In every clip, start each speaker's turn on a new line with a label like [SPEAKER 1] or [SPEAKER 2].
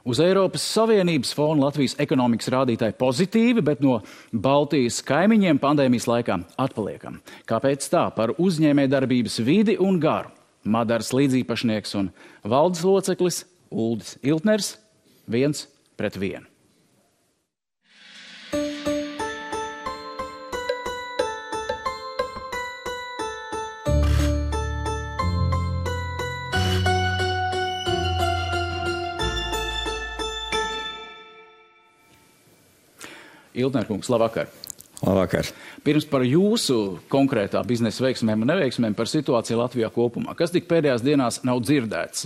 [SPEAKER 1] Uz Eiropas Savienības fona Latvijas ekonomikas rādītāji pozitīvi, bet no Baltijas kaimiņiem pandēmijas laikā atpaliekam. Kāpēc tā? Par uzņēmējdarbības vidi un garu. Madaras līdzīpašnieks un valdes loceklis Uldis Iltners 1-1. Iltner kungs, labvakar.
[SPEAKER 2] Labvakar.
[SPEAKER 1] Pirms par jūsu konkrētā biznesa veiksmēm un neveiksmēm par situāciju Latvijā kopumā. Kas tik pēdējās dienās nav dzirdēts?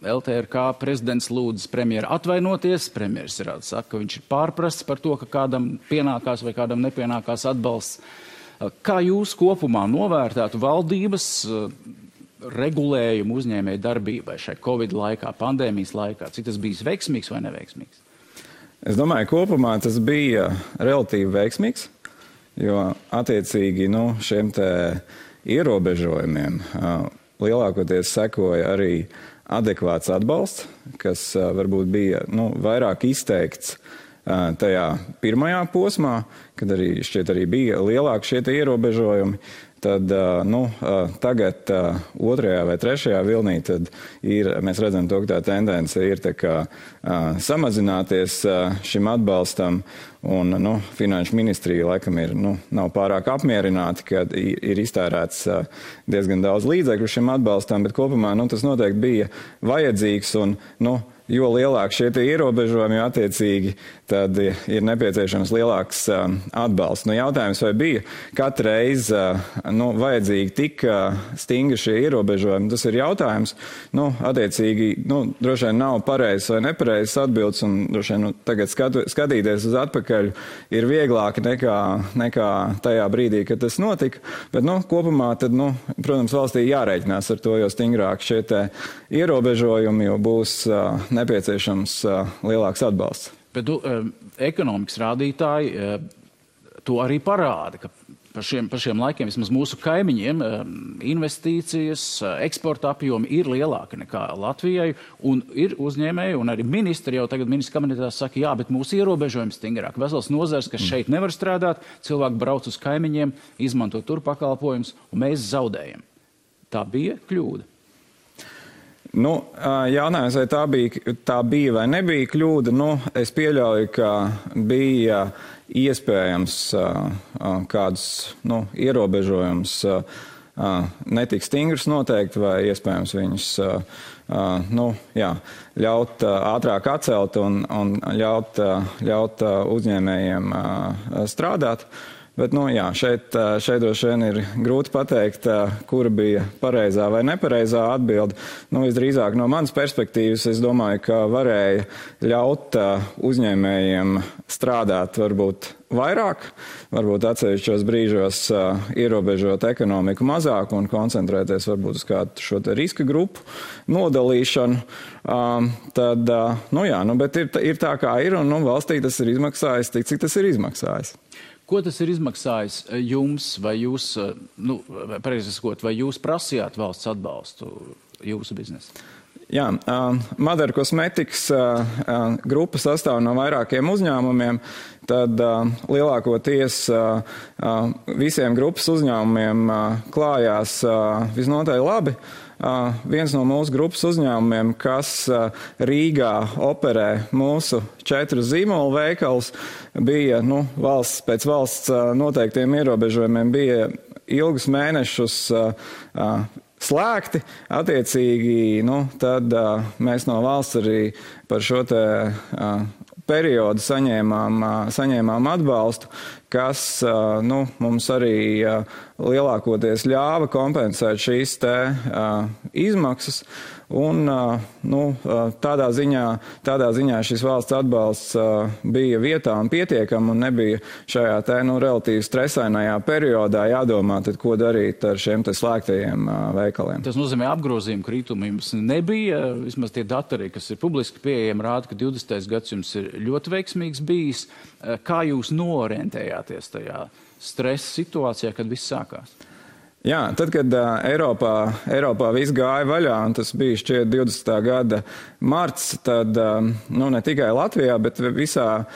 [SPEAKER 1] LTRK prezidents lūdz premjeru atvainoties. Premjeras saka, ka viņš ir pārprasts par to, ka kādam pienākās vai kādam nepienākās atbalsts. Kā jūs kopumā novērtētu valdības regulējumu uzņēmēju darbībai šai Covid laikā, pandēmijas laikā? Cik tas bijis veiksmīgs vai neveiksmīgs?
[SPEAKER 2] Es domāju, kopumā tas bija relatīvi veiksmīgs, jo attiecīgi šiem te ierobežojumiem lielākoties sekoja arī adekvāts atbalsts, kas varbūt bija vairāk izteikts tajā pirmajā posmā, kad arī šķiet arī bija lielāki šie te ierobežojumi. Tad tagad otrajā vai trešajā vilnī tad mēs redzam to, ka tā tendence ir samazināties šim atbalstam, un Finanšu ministrija laikam nav pārāk apmierināti, ka ir iztērēts diezgan daudz līdzekļu šim atbalstam, bet kopumā tas noteikti bija vajadzīgs, un jo lielāk šie ierobežojumi, jo attiecīgi tad ir nepieciešams lielāks atbalsts. Jautājums, vai bija katru reizi vajadzīgi tik stingri šie ierobežojumi, tas ir jautājums. Attiecīgi, droši vien nav pareizs vai nepareizs atbildes, un droši vien tagad skatīties uz atpakaļ ir vieglāk nekā tajā brīdī, kad tas notika. Bet kopumā tad, protams, valstī jārēķinās ar to, jo stingrāk šie te ierobežojumi, jo būs nepieciešams lielāks atbalsts.
[SPEAKER 1] Bet ekonomikas rādītāji to arī parāda, ka par šiem laikiem vismaz mūsu kaimiņiem investīcijas, eksporta apjomi ir lielāki nekā Latvijai, un ir uzņēmēji, un arī ministri jau tagad ministra kabinetā saka, jā, bet mūsu ierobežojumi stingrāk. Vesels nozars, kas šeit nevar strādāt, cilvēki brauc uz kaimiņiem, izmanto tur pakalpojumus, un mēs zaudējam. Tā bija kļūda.
[SPEAKER 2] Jautājums, vai tā bija vai nebija kļūda, es pieļauju, ka bija iespējams kādus ierobežojumus netik stingrus noteikti, vai iespējams viņus ļaut ātrāk atcelt un ļaut uzņēmējiem strādāt. Bet, šeit droši vien ir grūti pateikt, kura bija pareizā vai nepareizā atbilde. Visdrīzāk no manas perspektīvas, es domāju, ka varēja ļaut uzņēmējiem strādāt varbūt vairāk, varbūt atsevišķos brīžos ierobežot ekonomiku mazāk un koncentrēties varbūt uz kādu šo te riska grupu nodalīšanu. Bet ir tā kā ir, un valstī tas ir izmaksājis tik, cik tas ir izmaksājis.
[SPEAKER 1] Ko tas ir izmaksājis jums, vai jūs, pareizi sakot, vai jūs prasījāt valsts atbalstu jūsu biznesu?
[SPEAKER 2] Jā, Madara Kosmetikas grupa sastāv no vairākiem uzņēmumiem, tad lielākoties visiem grupas uzņēmumiem klājās visnotaļ labi. Viens no mūsu grupas uzņēmumiem, kas Rīgā operē mūsu 4 zīmolu veikals, bija pēc valsts noteiktiem ierobežojumiem bija ilgus mēnešus slēgti. Attiecīgi, tad mēs no valsts arī par šo te periodu saņēmām atbalstu, kas mums arī lielākoties ļāva kompensēt šīs te izmaksas. Un tādā ziņā šis valsts atbalsts bija vietā un pietiekam un nebija šajā te relatīvi stresainajā periodā jādomā, tad ko darīt ar šiem te slēgtajiem veikaliem.
[SPEAKER 1] Tas nozīmē apgrozījumu kritumu jums nebija, vismaz tie dati arī, kas ir publiski pieejami, rāda, ka 20. gads jums ir ļoti veiksmīgs bijis. Kā jūs noorientējāties tajā stresa situācijā, kad viss sākās?
[SPEAKER 2] Jā, tad, kad Eiropā viss gāja vaļā, un tas bija šķiet 20. gada marts, tad ne tikai Latvijā, bet visā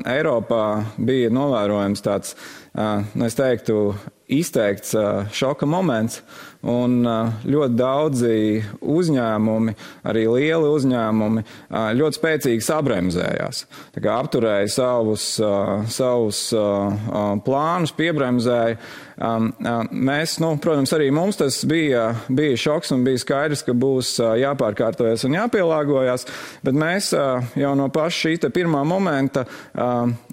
[SPEAKER 2] Eiropā bija novērojams tāds, es teiktu, izteikts šoka moments, un ļoti daudzi uzņēmumi, arī lieli uzņēmumi, ļoti spēcīgi sabremzējās. Tā kā apturēja savus plānus, piebremzēja. Mēs, protams, arī mums tas bija šoks un bija skaidrs, ka būs jāpārkārtojas un jāpielāgojas, bet mēs jau no paša šī pirmā momenta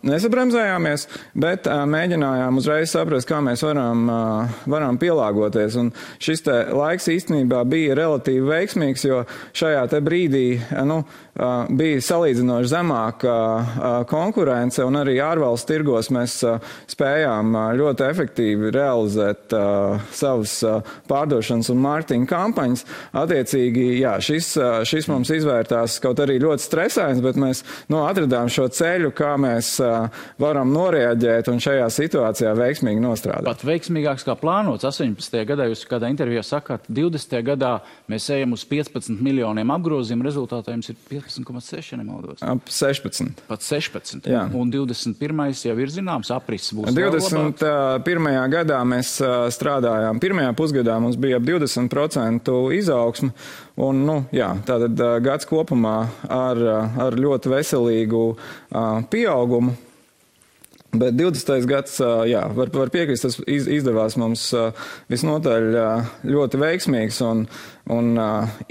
[SPEAKER 2] nesabremzējāmies, bet mēģinājām uzreiz saprast, kā mēs varam pielāgoties. Un šis te laiks īstenībā bija relatīvi veiksmīgs, jo šajā te brīdī bija salīdzinoši zemāka konkurence, un arī ārvalstu tirgos mēs spējām ļoti efektīvi realizēt savas pārdošanas un mārketinga kampaņas. Attiecīgi, jā, šis mums izvērtās kaut arī ļoti stresains, bet mēs atradām šo ceļu, kā mēs varam noreaģēt un šajā situācijā veiksmīgi nostrādāt.
[SPEAKER 1] Pat veiksmīgāks kā plānots. 18. gadā jūs kādā intervijā sakāt, 20. gadā mēs ejam uz 15 miljoniem apgrozījumu, rezultātā jums ir 15,6, nemaldos.
[SPEAKER 2] Ap 16.
[SPEAKER 1] Pat 16.
[SPEAKER 2] Jā.
[SPEAKER 1] Un 21. jau ir zināms, aprises būs
[SPEAKER 2] 21. gadā mēs strādājām. Pirmajā pusgadā mums bija ap 20% izaugsme. Un, tātad gads kopumā ar ļoti veselīgu pieaugumu. Bet 20. gads, var piekrist, tas izdevās mums visnotaļ ļoti veiksmīgs un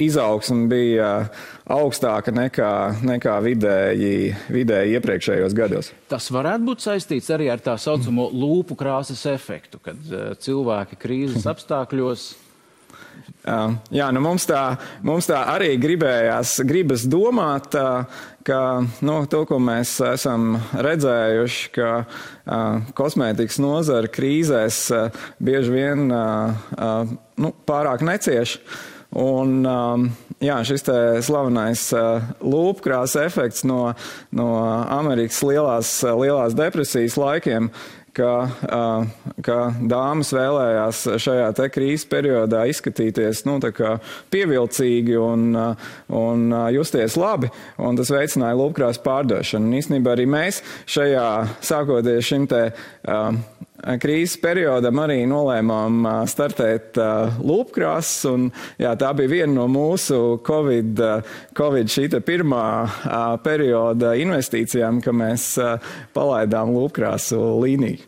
[SPEAKER 2] izaugsme bija augstāka nekā vidēji iepriekšējos gados.
[SPEAKER 1] Tas varētu būt saistīts arī ar tā saucamo lūpu krāsas efektu, kad cilvēki krīzes apstākļos.
[SPEAKER 2] Jā, mums tā arī gribas domāt, ka to, ko mēs esam redzējuši, ka kosmētikas nozara krīzēs bieži vien pārāk necieš. Un šis te slavenais lūpkrāsa efekts no Amerikas lielās depresijas laikiem, ka dāmas vēlējās šajā te krīzes periodā izskatīties tā kā pievilcīgi un justies labi, un tas veicināja lūpkrāsu pārdošanu. Un īstenībā arī mēs šajā, sākoties šim te krīzes periodam, arī nolēmām startēt lūpkrāsas, un tā bija viena no mūsu Covid šīta pirmā perioda investīcijām, ka mēs palaidām lūpkrāsu līniju.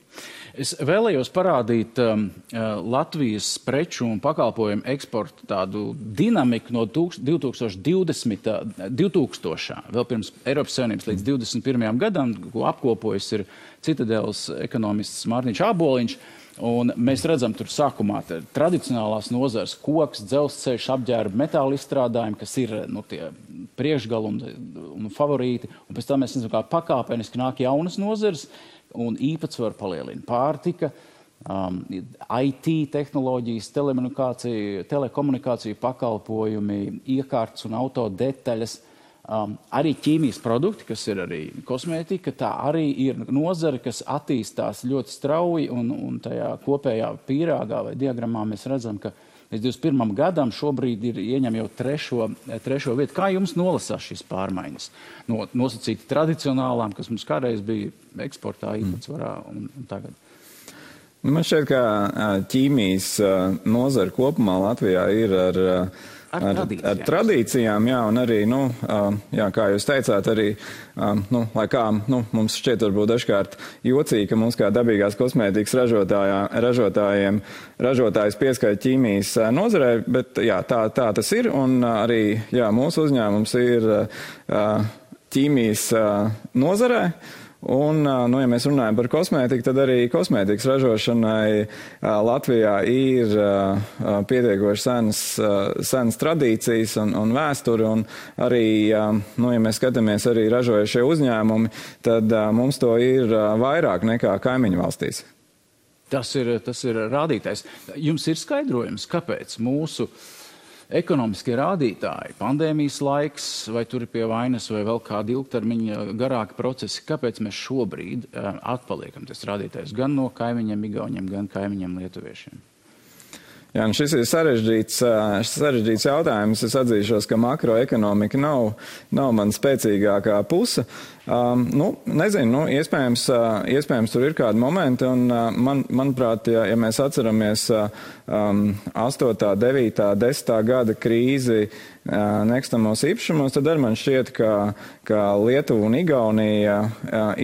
[SPEAKER 1] Es vēlējos parādīt Latvijas preču un pakalpojumu eksportu tādu dinamiku no 2000. Vēl pirms Eiropas Savienības līdz 21. gadam, ko apkopojas ir Citadeles ekonomists Mārtiņš Āboliņš. Un mēs redzam tur sākumā tradicionālās nozars, koks, dzelzceļš, apģērba, metāla izstrādājumi, kas ir tie priekšgali un favorīti. Un pēc tam mēs redzam, kā pakāpeniski nāk jaunas nozars un īpatsvaru palielina pārtika, IT tehnoloģijas, telekomunikāciju pakalpojumi, iekārtas un auto detaļas. Arī ķīmijas produkti, kas ir arī kosmētika, tā arī ir nozara, kas attīstās ļoti strauji, un tajā kopējā pīrāgā vai diagrammā mēs redzam, ka līdz 21. gadam šobrīd ieņem jau trešo vietu. Kā jums nolasās šīs pārmaiņas? Nosacīti tradicionālām, kas mums kādreiz bija eksportā īpatsvarā un tagad?
[SPEAKER 2] Man šķiet, ka ķīmijas nozara kopumā Latvijā ir ar tradīcijām, jā, un arī, kā jūs teicāt, arī, lai kā mums šķiet varbūt dažkārt jocīgi, ka mums kā dabīgās kosmētikas ražotājs pieskaita ķīmijas nozarē, bet jā, tā tas ir, un arī, jā, mūsu uzņēmums ir ķīmijas nozarē. Un, ja mēs runājam par kosmētiku, tad arī kosmētikas ražošanai Latvijā ir pietiekoši senas tradīcijas un vēsturi, un arī, ja mēs skatāmies arī ražojušie uzņēmumi, tad mums to ir vairāk nekā kaimiņu valstīs.
[SPEAKER 1] Tas ir rādītājs. Jums ir skaidrojums, kāpēc mūsu ekonomiskie rādītāji, pandēmijas laiks, vai tur ir pie vainas, vai vēl kādi ilgtermiņa garāki procesi, kāpēc mēs šobrīd atpaliekam tas rādītājs gan no kaimiņiem Igauņiem, gan kaimiņiem Lietuviešiem?
[SPEAKER 2] Jā, šis ir sarežģīts jautājums. Es atzīšos, ka makroekonomika nav man spēcīgākā puse. Nezinu, iespējams tur ir kādi momenti, un manuprāt, ja mēs atceramies 8., 9., 10. gada krīzi nekustamos īpašumos, tad arī man šķiet, ka Lietuva un Igaunija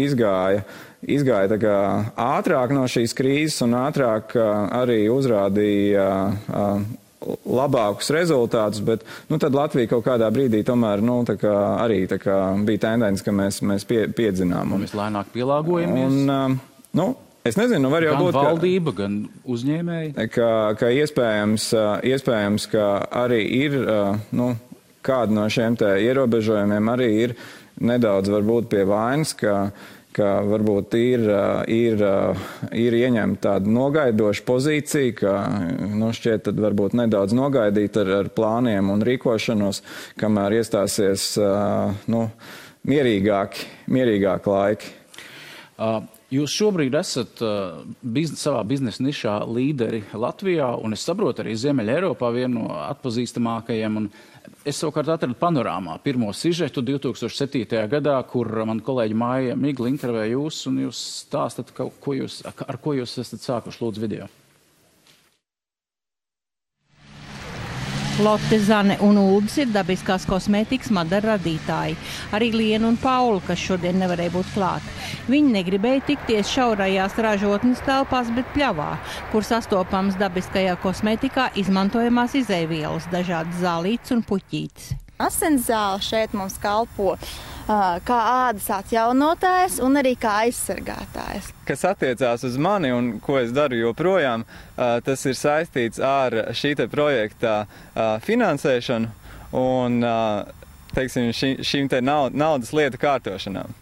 [SPEAKER 2] izgāja tā kā ātrāk no šīs krīzes un ātrāk arī uzrādīja labākus rezultātus, bet tad Latvija kaut kādā brīdī tomēr arī bija tendence, ka mēs piedzinām.
[SPEAKER 1] Mēs lēnāk pielāgojamies.
[SPEAKER 2] Es nezinu, var jau būt,
[SPEAKER 1] gan valdība, gan uzņēmēji.
[SPEAKER 2] Ka iespējams, ka arī ir, kādi no šiem te ierobežojumiem arī ir nedaudz varbūt pie vainas, ka varbūt ir ieņemta tāda nogaidoša pozīcija, ka šķiet tad varbūt nedaudz nogaidīt ar plāniem un rīkošanos, kamēr iestāsies mierīgāki laiki.
[SPEAKER 1] Jūs šobrīd esat savā biznesa nišā līderi Latvijā, un es saprotu arī Ziemeļa Eiropā vienu no atpazīstamākajiem. Un es savukārt atradu panorāmā pirmo sižetu 2007. gadā, kur man kolēģi Māja Migla intervēja jūs, un jūs stāstat, ar ko jūs esat sākuši, lūdzu, video.
[SPEAKER 3] Lotte, Zane un Ulbis ir dabiskās kosmētikas Madara radītāji. Arī Liena un Paula, kas šodien nevarēja būt klāt. Viņi negribēja tikties šaurajās ražotnes telpās, bet pļavā, kur sastopams dabiskajā kosmētikā izmantojamās izēvielas, dažādas zālītes un puķītes.
[SPEAKER 4] Asinszāle šeit mums kalpo kā ādas atjaunotājs un arī kā aizsargātājs.
[SPEAKER 2] Kas attiecās uz mani un ko es daru joprojām, tas ir saistīts ar šī te projekta finansēšanu un, teiksim, šīm te naudas lietu kārtošanām.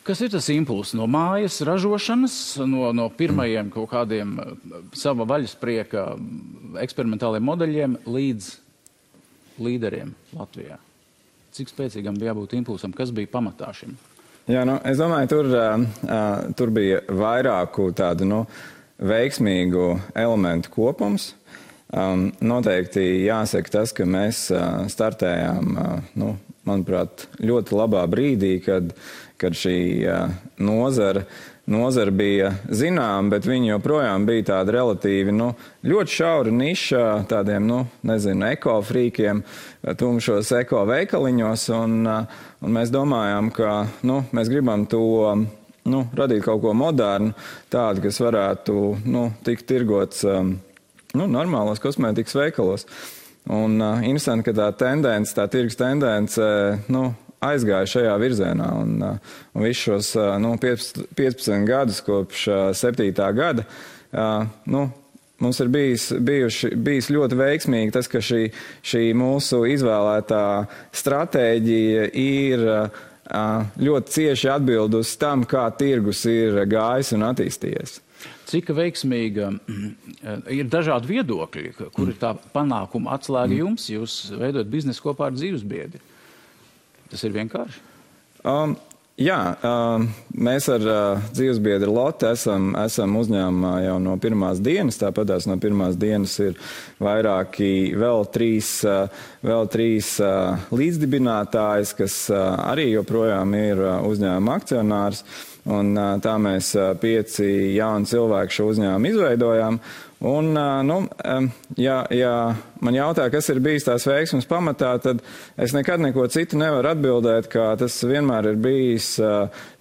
[SPEAKER 1] Kas ir tas impulss no mājas ražošanas, no pirmajiem kaut kādiem sava vaļasprieka eksperimentāliem modeļiem līdz līderiem Latvijā? Cik spēcīgam bija jābūt impulsam? Kas bija pamatā šim?
[SPEAKER 2] Jā, es domāju, tur bija vairāku tādu veiksmīgu elementu kopums. Noteikti jāsaka tas, ka mēs startējām, manuprāt, ļoti labā brīdī, kad šī nozara bija zinām, bet viņi joprojām bija tāda relatīvi, ļoti šaura niša tādiem, ekofrīkiem, tumšos ekoveikaliņos, un mēs domājām, ka, mēs gribam to, radīt kaut ko modernu, tādu, kas varētu, tikt tirgots, normālos kosmētikas veikalos. Un interesanti, ka tā tirgus tendence, aizgāja šajā virzienā, un visus šos 15 gadus kopš 7. gada mums ir bijis ļoti veiksmīgi tas, ka šī mūsu izvēlētā stratēģija ir ļoti cieši atbildus tam, kā tirgus ir gājis un attīstījies.
[SPEAKER 1] Cik veiksmīga ir dažādi viedokļi, kur ir tā panākuma atslēga jums? Jūs veidojat biznesu kopā ar dzīvesbiedri. Tas ir vienkārši?
[SPEAKER 2] Jā, mēs ar dzīvesbiedri Lotte esam uzņēmumā jau no pirmās dienas, tāpatās no pirmās dienas ir vēl trīs līdzdibinātājs, kas arī joprojām ir uzņēmuma akcionārs. Un tā mēs 5 jauni cilvēki šo uzņēmumu izveidojām. Un, ja man jautā, kas ir bijis tās veiksmes pamatā, tad es nekad neko citu nevaru atbildēt, ka tas vienmēr ir bijis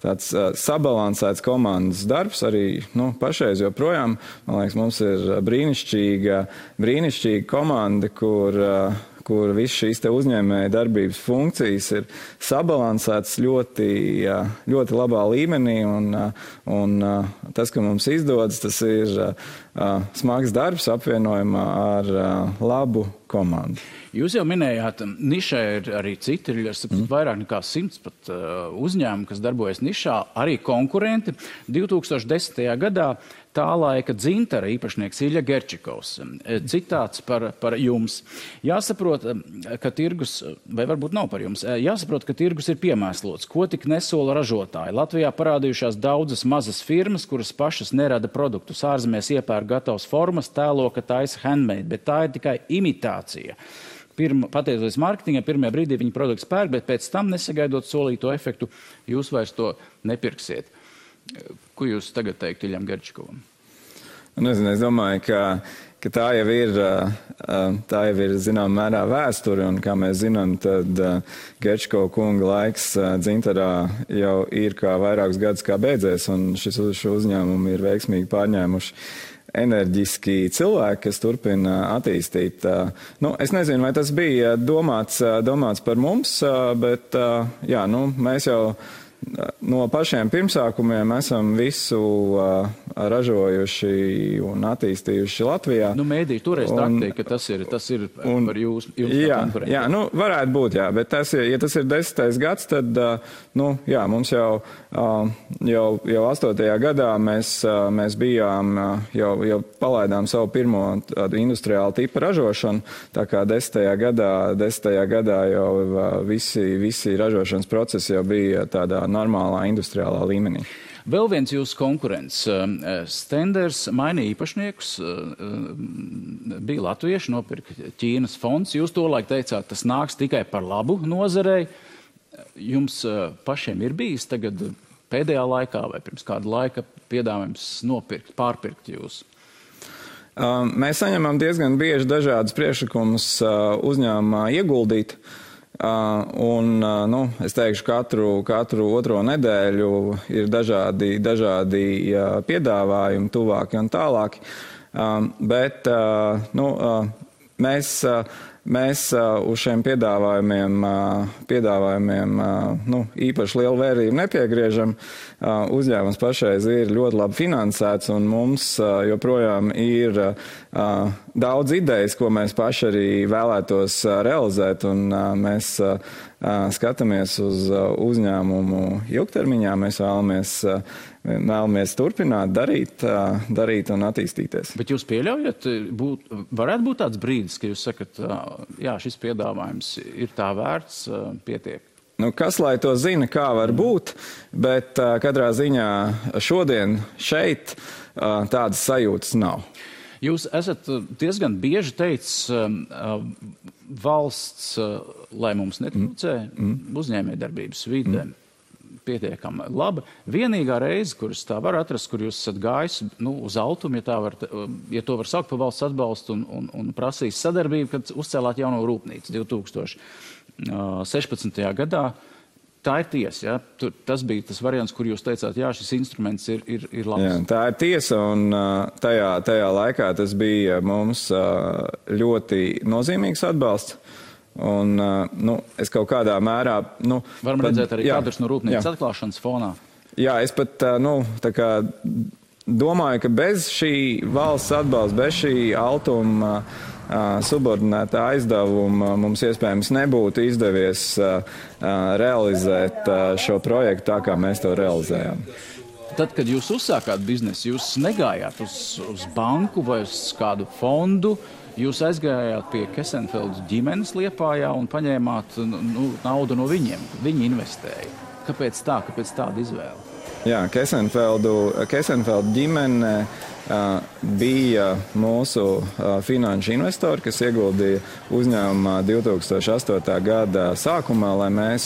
[SPEAKER 2] tāds sabalansēts komandas darbs, arī pašreiz joprojām. Man liekas, mums ir brīnišķīga komanda, kur viss šīs te uzņēmēja darbības funkcijas ir sabalansētas ļoti labā līmenī, un tas, ka mums izdodas, tas ir smags darbs apvienojumā ar labu komandu.
[SPEAKER 1] Jūs jau minējāt, nišā ir arī citi, ir vairāk nekā 100 pat uzņēmumi, kas darbojas nišā, arī konkurenti. 2010. gadā tā laika dzintara īpašnieks Ilja Gerčikovs. Citāts par jums. Jāsaprot, ka tirgus, vai varbūt nav par jums, jāsaprot, ka tirgus ir piemēslots. Ko tik nesola ražotāji? Latvijā parādījušās daudzas mazas firmas, kuras pašas nerada produktus. Ārzemēs iepērk gatavas formas, tēlo, ka taisa handmade, bet tā ir tikai imitācija. Pateicoties mārketingam, pirmajā brīdī viņi produktus pērk, bet pēc tam, nesagaidot solīto efektu, jūs vairs to nepirksiet. Ko jūs tagad teikt Iljam Gerčikovam?
[SPEAKER 2] Nezinu, es domāju, ka tā jau ir zinām mērā vēsture, un kā mēs zinām, tad Gerčikova kunga laiks dzintarā jau ir kā vairākus gadus kā beidzies, un šo uzņēmumu ir veiksmīgi pārņēmuši enerģiski cilvēki, kas turpina attīstīt. Es nezinu, vai tas bija domāts par mums, bet mēs jau no pašiem pirmsākumiem esam visu ražojuši un attīstījuši Latvijā.
[SPEAKER 1] Mēdī toreiz taktīja, ka tas ir par jūs konkurenti.
[SPEAKER 2] Jā, varētu būt, jā, bet ja tas ir 10. gads, tad, mums jau 8. gadā mēs bijām, jau palaidām savu pirmo tādu industriālu tipu ražošanu, tā kā 10. gadā jau visi ražošanas procesi jau bija tādā normālā industriālā līmenī.
[SPEAKER 1] Vēl viens jūsu konkurents, Stenders, mainīja īpašniekus, bija latvieši, nopirka Ķīnas fonds. Jūs tolaik teicāt, tas nāks tikai par labu nozarei. Jums pašiem ir bijis tagad pēdējā laikā vai pirms kāda laika piedāvājums pārpirkt jūs?
[SPEAKER 2] Mēs saņemam diezgan bieži dažādas priekšlikumus uzņēmumā ieguldīt. Es teikšu, katru otro nedēļu ir dažādi piedāvājumi, tuvāki un tālāki. Bet mēs uz šiem piedāvājumiem īpaši lielu vērību nepiegriežam. Uzņēmums pašreiz ir ļoti labi finansēts, un mums joprojām ir daudz idejas, ko mēs paši arī vēlētos realizēt, un mēs skatāmies uz uzņēmumu ilgtermiņā. Mēs vēlamies turpināt, darīt un attīstīties.
[SPEAKER 1] Bet jūs pieļaujat, varētu būt tāds brīdis, ka jūs sakat, jā, šis piedāvājums ir tā vērts, pietiek?
[SPEAKER 2] Kas lai to zina, kā var būt, bet katrā ziņā šodien šeit tādas sajūtas nav.
[SPEAKER 1] Jūs esat diezgan bieži teicis, valsts, lai mums netrūcē, uzņēmējdarbības vide pietiekami laba. Vienīgā reize, kuras tā var atrast, kur jūs esat gājis uz altumu, ja to var saukt par valsts atbalstu un prasīs sadarbību, kad uzcēlāt jauno rūpnīcu 2016. gadā. Tā ir tiesa, ja? Tas bija tas variants, kur jūs teicāt, jā, šis instruments ir labs.
[SPEAKER 2] Jā, tā ir tiesa, un tajā laikā tas bija mums ļoti nozīmīgs atbalsts. Un, es kaut kādā mērā...
[SPEAKER 1] Varam redzēt arī kadrus no rūpnīcas atklāšanas fonā.
[SPEAKER 2] Jā, es pat, domāju, ka bez šī valsts atbalsta, bez šī altuma subordinētā aizdevuma mums iespējams nebūtu izdevies realizēt šo projektu tā, kā mēs to realizējām.
[SPEAKER 1] Tad, kad jūs uzsākāt biznesu, jūs negājāt uz banku vai uz kādu fondu, jūs aizgājāt pie Kesenfeldu ģimenes Liepājā un paņēmāt naudu no viņiem. Viņi investēja. Kāpēc tā? Kāpēc tāda izvēle?
[SPEAKER 2] Jā, Kesenfeldu ģimene bija mūsu finanšu investori, kas ieguldīja uzņēmumā 2008. gada sākumā, lai mēs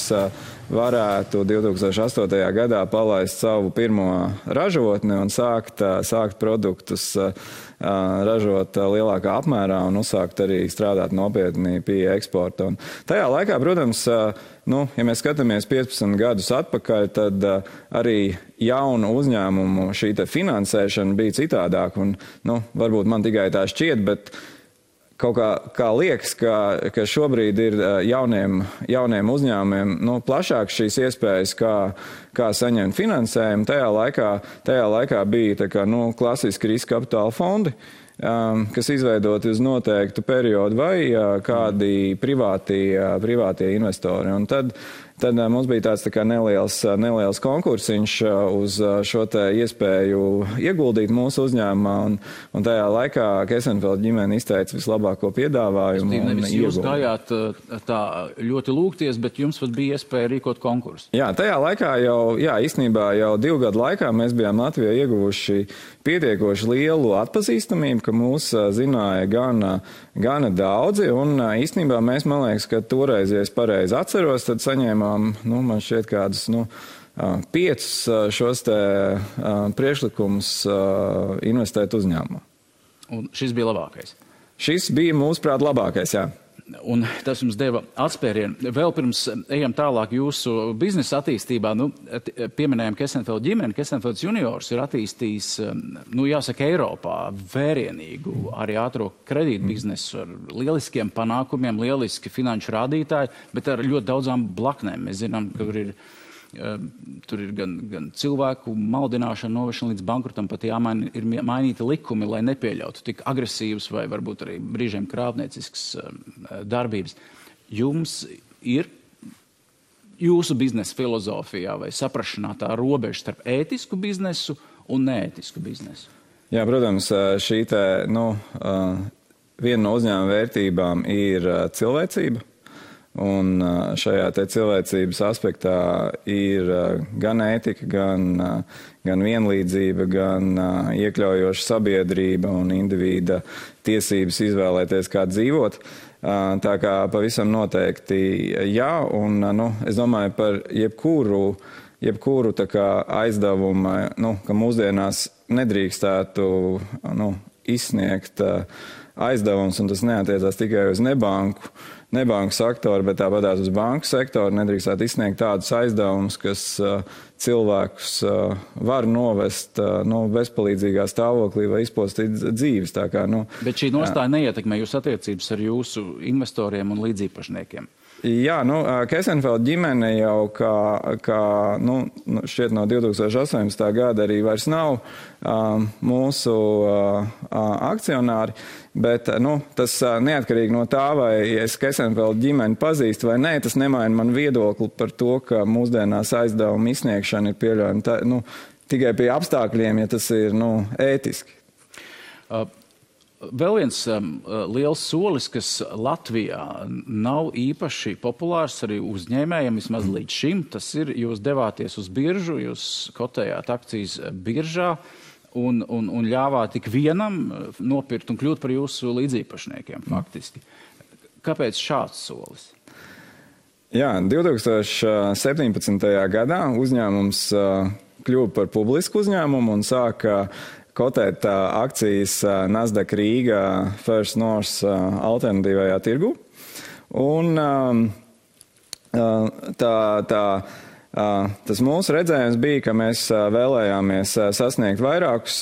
[SPEAKER 2] varētu 2008. gadā palaist savu pirmo ražotni un sākt produktus ražot lielākā apmērā un uzsākt arī strādāt nopietni pie eksporta. Un tajā laikā, protams, ja mēs skatāmies 15 gadus atpakaļ, tad arī jaunu uzņēmumu šī finansēšana bija citādāk. Un, varbūt man tikai tā šķiet, bet kaut kā liekas, ka šobrīd ir jauniem uzņēmumiem plašāk šīs iespējas, kā saņemt finansējumu. Tajā laikā bija klasiski riska kapitāla fondi, kas izveidoti uz noteiktu periodu vai kādi privātie investori. Un tad mums bija tāds tā kā neliels konkursiņš uz šo te iespēju ieguldīt mūsu uzņēmumā, un tajā laikā Kesenfeld ģimene izteica vislabāko piedāvājumu.
[SPEAKER 1] Nevis jūs gājāt tā ļoti lūgties, bet jums pat bija iespēja rīkot konkursu.
[SPEAKER 2] Jā, tajā laikā īstenībā jau 2 gadu laikā mēs bijām Latvijā ieguvuši pietiekoši lielu atpazīstamību, ka mūs zināja gana daudzi, un īstenībā mēs, man liekas, ka toreiz, ja es pareizi atceros, tad saņēmām, man šķiet kādus, 5 šos te priekšlikumus investēt uzņēmumā.
[SPEAKER 1] Un šis bija labākais?
[SPEAKER 2] Šis bija, mūsuprāt, labākais, jā.
[SPEAKER 1] Un tas jums deva atspērienu. Vēl pirms ejam tālāk jūsu biznesa attīstībā, pieminējam Kesenfeld ģimeni. Kesenfelds juniors ir attīstījis, jāsaka, Eiropā vērienīgu arī ātro kredītu biznesu ar lieliskiem panākumiem, lieliski finanšu rādītāji, bet ar ļoti daudzām blaknēm. Mēs zinām, ka tur ir gan cilvēku maldināšana, novešana līdz bankrotam, pat ir mainīti likumi, lai nepieļautu tik agresīvas vai varbūt arī brīžiem krāpnieciskas darbības. Jums ir jūsu biznesa filozofijā vai saprašanā tā robeža starp ētisku biznesu un neētisku biznesu?
[SPEAKER 2] Jā, protams, šī viena no uzņēmuma vērtībām ir cilvēcība. Un šajā te cilvēcības aspektā ir gan ētika, gan vienlīdzība, gan iekļaujoša sabiedrība un individa tiesības izvēlēties, kā dzīvot. Tā kā pavisam noteikti jā, un es domāju par jebkuru tā kā aizdevumu, ka mūsdienās nedrīkstētu izsniegt aizdevums, un tas neatiecās tikai uz nebanku sektoru, bet tāpatās uz banku sektoru nedrīkstētu izsniegt tādus aizdevumus, kas cilvēkus var novest bezpalīdzīgā stāvoklī vai izpostīt dzīves. Tā kā,
[SPEAKER 1] bet šī nostāja neietekmē jūsu attiecības ar jūsu investoriem un līdziepašniekiem?
[SPEAKER 2] Jā, Kesenfeld ģimene jau šķiet no 2018. gada arī vairs nav mūsu akcionāri, bet tas neatkarīgi no tā, vai es Kesenfeld ģimeni pazīstu vai nē, tas nemaina man viedokli par to, ka mūsdienās aizdevuma izsniegšana ir pieļaujama tikai pie apstākļiem, ja tas ir ētiski.
[SPEAKER 1] Vēl viens liels solis, kas Latvijā nav īpaši populārs arī uzņēmējiem, vismaz līdz šim, tas ir, jūs devāties uz biržu, jūs kotējāt akcijas biržā un ļāvāt tik vienam nopirkt un kļūt par jūsu līdziepašniekiem faktiski. Kāpēc šāds solis?
[SPEAKER 2] Jā, 2017. gadā uzņēmums kļuva par publisku uzņēmumu un sāka kotēt akcijas Nasdaq Rīga First North alternatīvajā tirgu. Un tas mūsu redzējums bija, ka mēs vēlējāmies sasniegt vairākus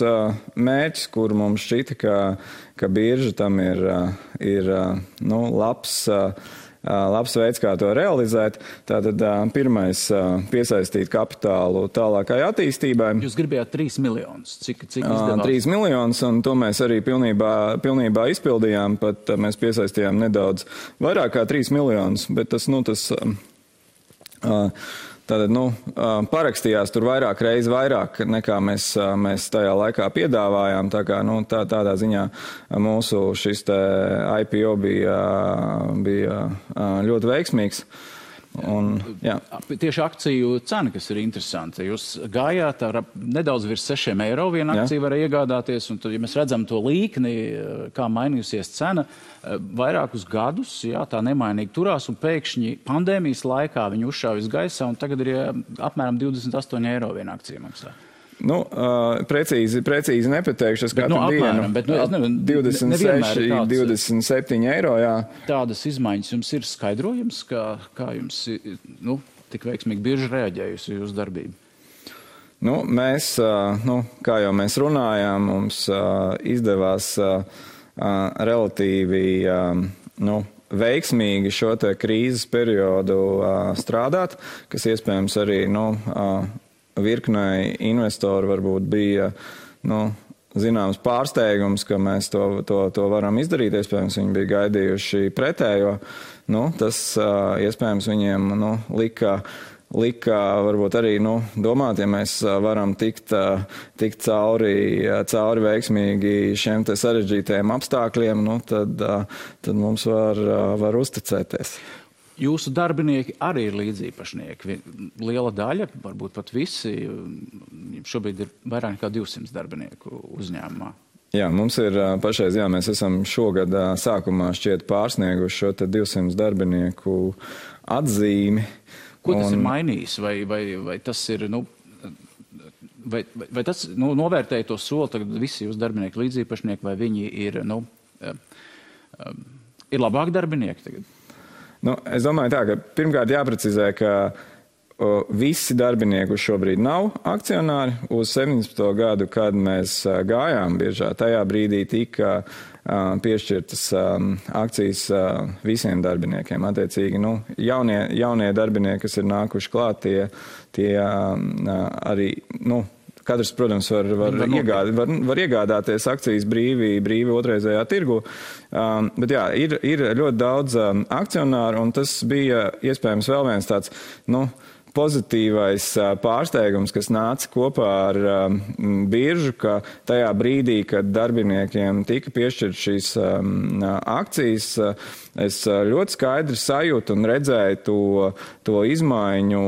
[SPEAKER 2] mērķus, kur mums šķita, ka birža tam ir labs veids, kā to realizēt. Tātad pirmais piesaistīt kapitālu tālākai attīstībai.
[SPEAKER 1] Jūs gribējāt 3 miljonus. Cik izdevās?
[SPEAKER 2] 3 miljonus, un to mēs arī pilnībā izpildījām, pat mēs piesaistījām nedaudz vairāk kā 3 miljonus, bet parakstījās tur vairāk nekā mēs tajā laikā piedāvājām. Tā kā, tādā ziņā mūsu šis te IPO bija ļoti veiksmīgs. Un,
[SPEAKER 1] tieši akciju cena, kas ir interesanta. Jūs gājāt ar nedaudz virs 6 eiro viena akcija var iegādāties, un tad, ja mēs redzam to līkni, kā mainījusies cena, vairākus gadus, tā nemainīgi turās, un pēkšņi pandēmijas laikā viņi uzšāvis gaisā, un tagad ir apmēram 28 eiro viena akcija maksā.
[SPEAKER 2] Precīzi nepateikšu, es katru dienu. 26, 27 eiro, jā.
[SPEAKER 1] Tādas izmaiņas jums ir skaidrojums, kā jums tik veiksmīgi bieži reaģējusi jūsu darbību?
[SPEAKER 2] Mēs, kā jau mēs runājām, mums izdevās relatīvi veiksmīgi šo te krīzes periodu strādāt, kas iespējams arī virknei investoru varbūt bija zināms pārsteigums, ka mēs to varam izdarīt. Iespējams, viņi bija gaidījuši pretējo. Tas iespējams viņiem lika varbūt arī domāt, ja mēs varam tikt cauri veiksmīgi šiem te sarežģītajiem apstākļiem, tad mums var uzticēties.
[SPEAKER 1] Jūsu darbinieki arī ir līdziepašnieki. Liela daļa, varbūt pat visi, šobrīd ir vairāk nekā 200 darbinieku uzņēmumā.
[SPEAKER 2] Jā, mums ir pašreiz, mēs esam šogad sākumā šķiet pārsnieguši šo 200 darbinieku atzīmi.
[SPEAKER 1] Ko tas ir mainījis? Vai tas ir, vai tas novērtēja to soli, tagad visi jūs darbinieki līdziepašnieki, vai viņi ir, ir labāki darbinieki tagad?
[SPEAKER 2] Es domāju tā, ka pirmkārt jāprecizē, ka visi darbinieki šobrīd nav akcionāri. Uz 17. gadu, kad mēs gājām biržā, tajā brīdī tika piešķirtas akcijas visiem darbiniekiem. Attiecīgi, jaunie darbinieki, kas ir nākuši klāt, tie arī, katrs, protams, var iegādāties akcijas brīvi otrreizējā tirgu, bet jā, ir ļoti daudz akcionāru, un tas bija iespējams vēl viens tāds, pozitīvais pārsteigums, kas nāca kopā ar biržu, ka tajā brīdī, kad darbiniekiem tika piešķirt šīs akcijas, es ļoti skaidri sajūtu un redzēju to izmaiņu,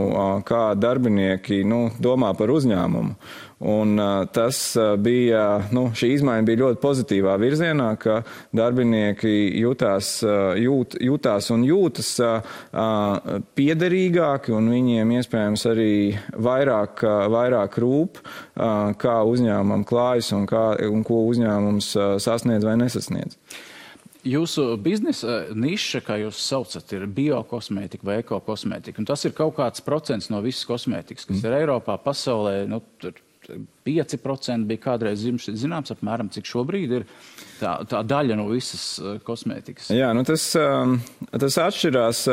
[SPEAKER 2] kā darbinieki domā par uzņēmumu. Un tas bija, šī izmaiņa bija ļoti pozitīvā virzienā, ka darbinieki jūtās un jūtas piederīgāki, un viņiem iespējams arī vairāk rūp, kā uzņēmumam klājas un ko uzņēmums sasniedz vai nesasniedz.
[SPEAKER 1] Jūsu biznesa niša, kā jūs saucat, ir biokosmētika vai ekokosmētika. Un tas ir kaut kāds procents no visas kosmētikas, kas ir Eiropā, pasaulē, tur 5% bija kādreiz zināms, apmēram, cik šobrīd ir tā daļa no visas kosmētikas. Jā,
[SPEAKER 2] tas atšķirās,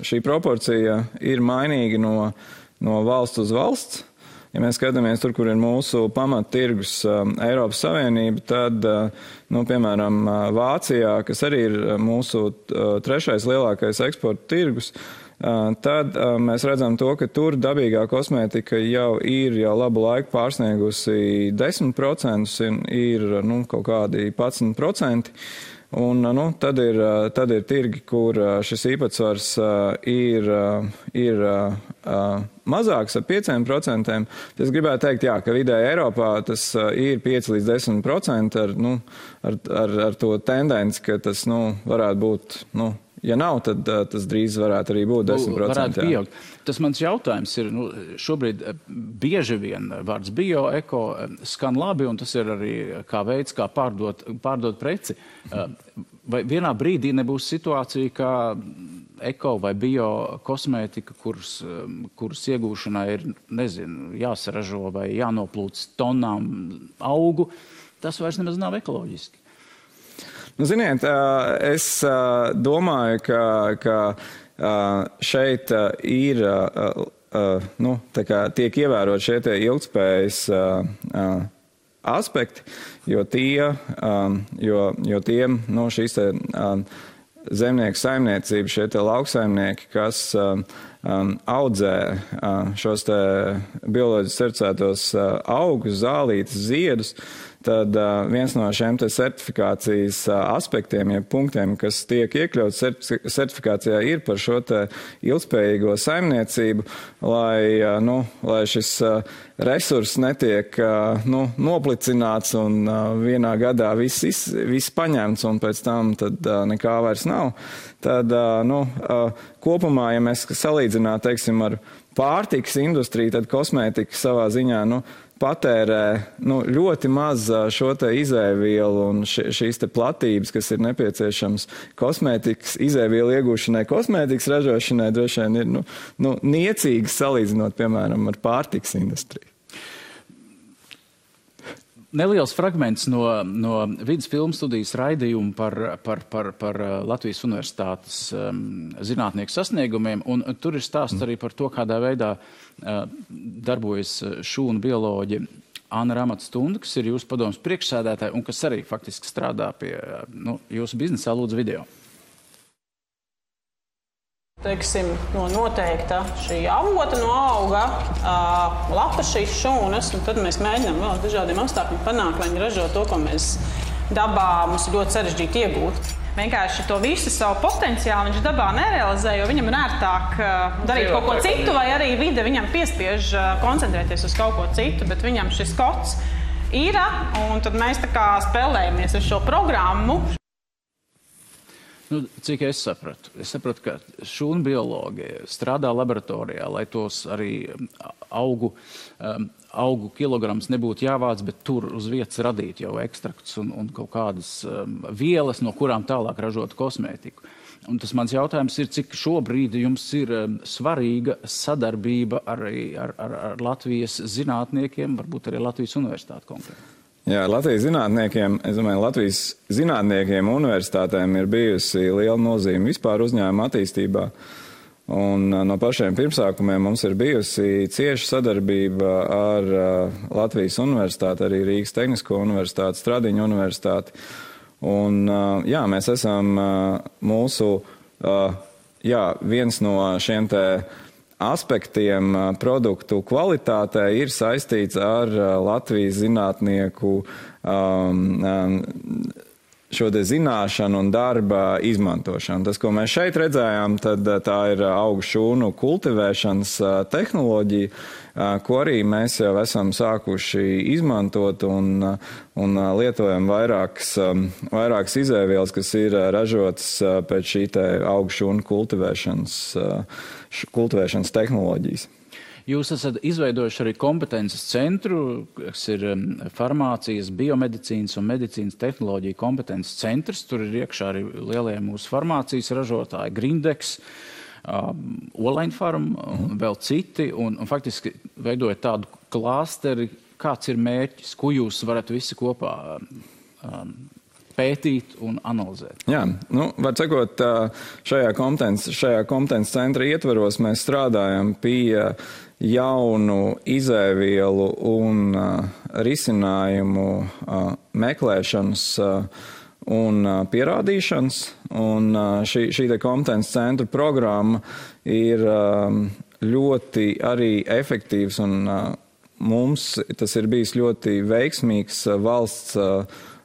[SPEAKER 2] šī proporcija ir mainīga no valsts uz valsts. Ja mēs skatāmies tur, kur ir mūsu pamattirgus Eiropas Savienība, tad, piemēram, Vācijā, kas arī ir mūsu trešais lielākais eksporta tirgus, tad mēs redzam to, ka tur dabīgā kosmētika jau labu laiku pārsniegusi 10%, ir kaut kādi 11%. Un tad ir tirgi, kur šis īpatsvars ir mazāks ar 5%. Es gribētu teikt, ka vidēji Eiropā tas ir 5 līdz 10% ar to tendenci, ka tas varētu būt, ja nav, tad tas drīz varētu arī būt 10%.
[SPEAKER 1] Varētu pieaugt. Tas mans jautājums ir, šobrīd bieži vien vārds bio, eko skan labi, un tas ir arī kā veids, kā pārdot preci. Vai vienā brīdī nebūs situācija, kā eko vai bio kosmētika, kuras iegūšanai ir, jāsaražo vai jānoplūc tonnām augu, tas vairs nemaz nav ekoloģiski?
[SPEAKER 2] Ziniet, es domāju, ka šeit ir, tiek ievērot šie ilgtspējas aspekti, jo tiem šīs zemnieku saimniecība, šie lauksaimnieki, kas audzē šos bioloģiski certificētos augus, zālītes, ziedus, tad viens no šiem certifikācijas aspektiem, ja punktiem, kas tiek iekļauts certifikācijā, ir par šo ilgspējīgo saimniecību, lai šis resurss netiek noplicināts un vienā gadā viss paņemts un pēc tam tad nekā vairs nav. Tad kopumā, ja mēs salīdzinām, teiksim, ar pārtikas industriju, tad kosmētika savā ziņā, patērē ļoti maz šo izēvielu un šīs platības, kas ir nepieciešams kosmētikas izēvielu iegūšanai, kosmētikas ražošanai, droši vien ir niecīgas salīdzinot, piemēram, ar pārtikas industriju.
[SPEAKER 1] Neliels fragments no vidas filmu studijas raidījuma par Latvijas Universitātes zinātnieku sasniegumiem, un tur ir stāsts arī par to, kādā veidā darbojas šūnu bioloģi Anna Ramatstunda, kas ir jūsu padomas priekšsēdētāja un kas arī faktiski strādā pie jūsu biznesā. Lūdzu, video.
[SPEAKER 5] Teiksim, no noteikta šī avota no auga, lapa šīs šūnas, un tad mēs mēģinām vēl dažādiem apstākļiem panākt, lai viņi ražo to, ko mēs dabā mums ir ļoti sarežģīti iegūt. Vienkārši to visu savu potenciālu viņš dabā nerealizē, jo viņam ir ērtāk darīt kaut ko citu, vai arī vide viņam piespiež koncentrēties uz kaut ko citu, bet viņam šis kods ir, un tad mēs tā kā spēlējamies ar šo programmu.
[SPEAKER 1] Cik es sapratu, ka šūnu biologi strādā laboratorijā, lai tos arī augu kilograms nebūtu jāvāc, bet tur uz vietas radīt jau ekstraktus un kaut kādas vielas, no kurām tālāk ražot kosmētiku. Un tas mans jautājums ir, cik šobrīd jums ir svarīga sadarbība arī ar Latvijas zinātniekiem, varbūt arī Latvijas universitāti konkrēti?
[SPEAKER 2] Jā, Latvijas zinātniekiem, es domāju, Latvijas zinātniekiem un universitātēm ir bijusi liela nozīme vispār uzņēmuma attīstībā. Un no pašiem pirmsākumiem mums ir bijusi cieša sadarbība ar Latvijas universitāti, arī Rīgas Tehnisko universitāti, Stradiņu universitāti. Un jā, mēs esam viens no šiem te aspektiem produktu kvalitātē ir saistīts ar Latvijas zinātnieku šo te zināšanu un darba izmantošanu. Tas, ko mēs šeit redzējām, tad tā ir augu šūnu kultivēšanas tehnoloģija, ko arī mēs jau esam sākuši izmantot un lietojam vairākas izēvielas, kas ir ražotas pēc šī te augu šūnu kultivēšanas tehnoloģijas.
[SPEAKER 1] Jūs esat izveidojuši arī kompetences centru, kas ir farmācijas, biomedicīnas un medicīnas tehnoloģija kompetences centrs. Tur ir iekšā arī lielie mūsu farmācijas ražotāji, Grindex, Olaņfarm un vēl citi. Un faktiski veidojot tādu klāsteri, kāds ir mērķis, ko jūs varat visi kopā pētīt un analizēt?
[SPEAKER 2] Jā, var sakot, šajā kompetences centra ietveros mēs strādājam pie jaunu izēvielu un risinājumu meklēšanas un pierādīšanas. Un šī te kompetences centra programma ir ļoti arī efektīvs un mums tas ir bijis ļoti veiksmīgs valsts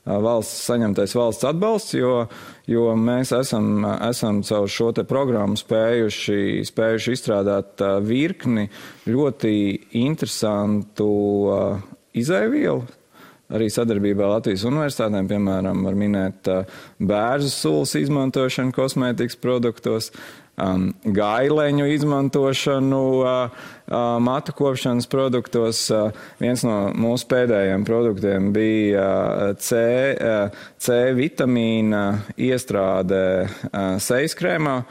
[SPEAKER 2] saņemtais valsts atbalsts, jo mēs esam caur šo te programmu spējuši izstrādāt virkni ļoti interesantu izēvielu. Arī sadarbībā Latvijas universitātēm, piemēram, var minēt bērzu sulas izmantošanu kosmētikas produktos, gaileņu izmantošanu matu kopšanas produktos. Viens no mūsu pēdējiem produktiem bija C vitamīna iestrāde sejas krēmā,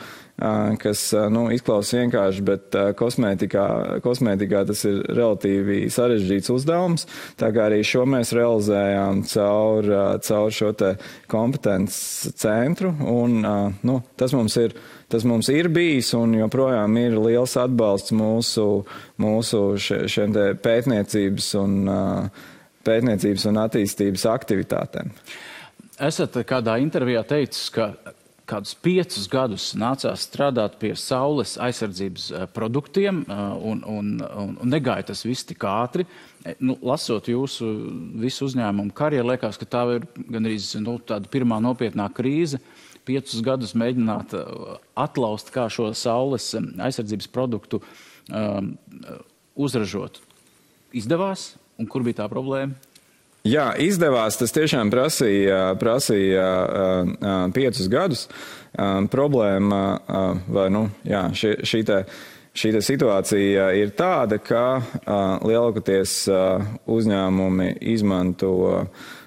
[SPEAKER 2] kas izklausās vienkārši, bet kosmētikā tas ir relatīvi sarežģīts uzdevums. Tā kā arī šo mēs realizējām caur šo te kompetences centru. Un, tas mums ir bijis un joprojām ir liels atbalsts mūsu šiem te pētniecības un attīstības aktivitātēm.
[SPEAKER 1] Esat kādā intervijā teicis, ka kādus 5 gadus nācās strādāt pie saules aizsardzības produktiem un negāja tas viss tik ātri. Lasot jūsu visu uzņēmumu karjeru, liekas, ka tā ir gandrīz tāda pirmā nopietnā krīze. 5 gadus mēģināt atlaust, kā šo saules aizsardzības produktu uzražot. Izdevās? Un kur bija tā problēma?
[SPEAKER 2] Jā, izdevās. Tas tiešām prasīja 5 gadus. Problēma, šī te situācija ir tāda, ka lielākoties uzņēmumi izmanto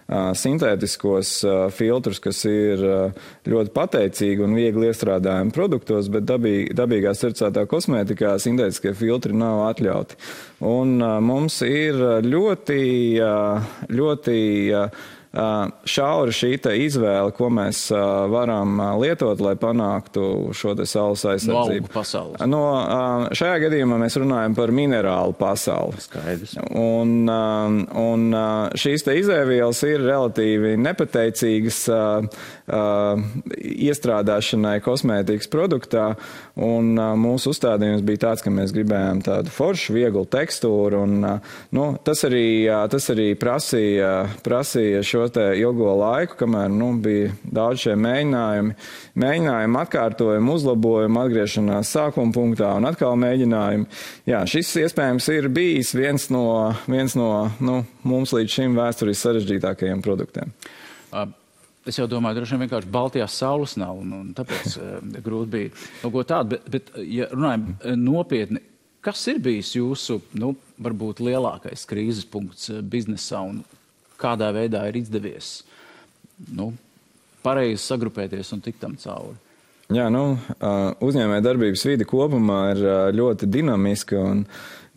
[SPEAKER 2] sintētiskos filtrus, kas ir ļoti pateicīgi un viegli iestrādājami produktos, bet dabīgā certificētā kosmētikā sintētiskie filtri nav atļauti. Un mums ir ļoti šaura šī izvēle, ko mēs varam lietot, lai panāktu šo saules aizsardzību.
[SPEAKER 1] No augu pasaules.
[SPEAKER 2] Šajā gadījumā mēs runājam par minerālu pasauli.
[SPEAKER 1] Skaidrs.
[SPEAKER 2] Un šīs izēvielas ir relatīvi nepateicīgas iestrādāšanai kosmētikas produktā, un mūsu uzstādījums bija tāds, ka mēs gribējām tādu foršu, vieglu tekstūru, un tas arī prasīja šo ilgo laiku, kamēr bija daudz šie mēģinājumi, atkārtojumi, uzlabojumi, atgriešanās sākuma punktā un atkal mēģinājumi. Jā, šis iespējams ir bijis viens no mums līdz šim vēsturiski sarežģītākajiem produktiem.
[SPEAKER 1] Es jau domāju, droši vien vienkārši Baltijās saules nav, un tāpēc grūti bija kaut ko tādu, bet ja runājam nopietni, kas ir bijis jūsu, varbūt lielākais krīzes punkts biznesā un kādā veidā ir izdevies, pareizi sagrupēties un tikt tam cauri?
[SPEAKER 2] Jā, uzņēmēja darbības vide kopumā ir ļoti dinamiska un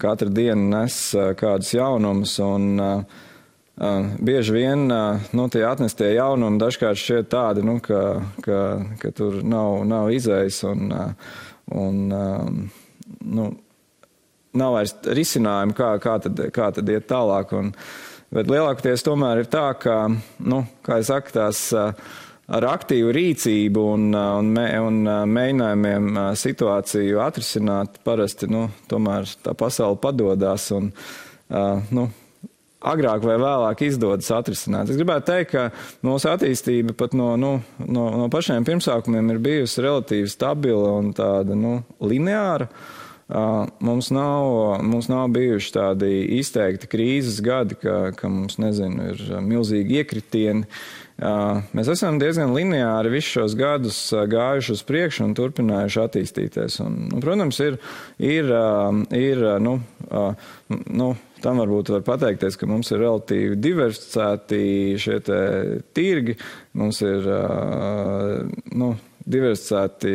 [SPEAKER 2] katru dienu nes kādus jaunumus, un bieži vien tie atnestie jaunumi dažkārt šķiet tādi, ka tur nav izējas un nav vairs risinājumi, kā tad iet tālāk. Bet lielākoties tomēr ir tā, ka, kā es saku, tās ar aktīvu rīcību un mēģinājumiem situāciju atrisināt, parasti, tomēr tā pasaule padodās un, agrāk vai vēlāk izdodas atrisināt. Es gribētu teikt, ka mūsu attīstība pat no pašiem pirmsākumiem ir bijusi relatīvi stabila un tāda, lineāra. Mums nav bijuši tādi izteikti krīzes gadi, ka mums, ir milzīgi iekritieni. Mēs esam diezgan lineāri visus šos gadus gājuši uz priekšu un turpinājuši attīstīties. Un protams, tam varbūt var pateikties, ka mums ir relatīvi diversificēti šie tirgi, mums ir, diversificēti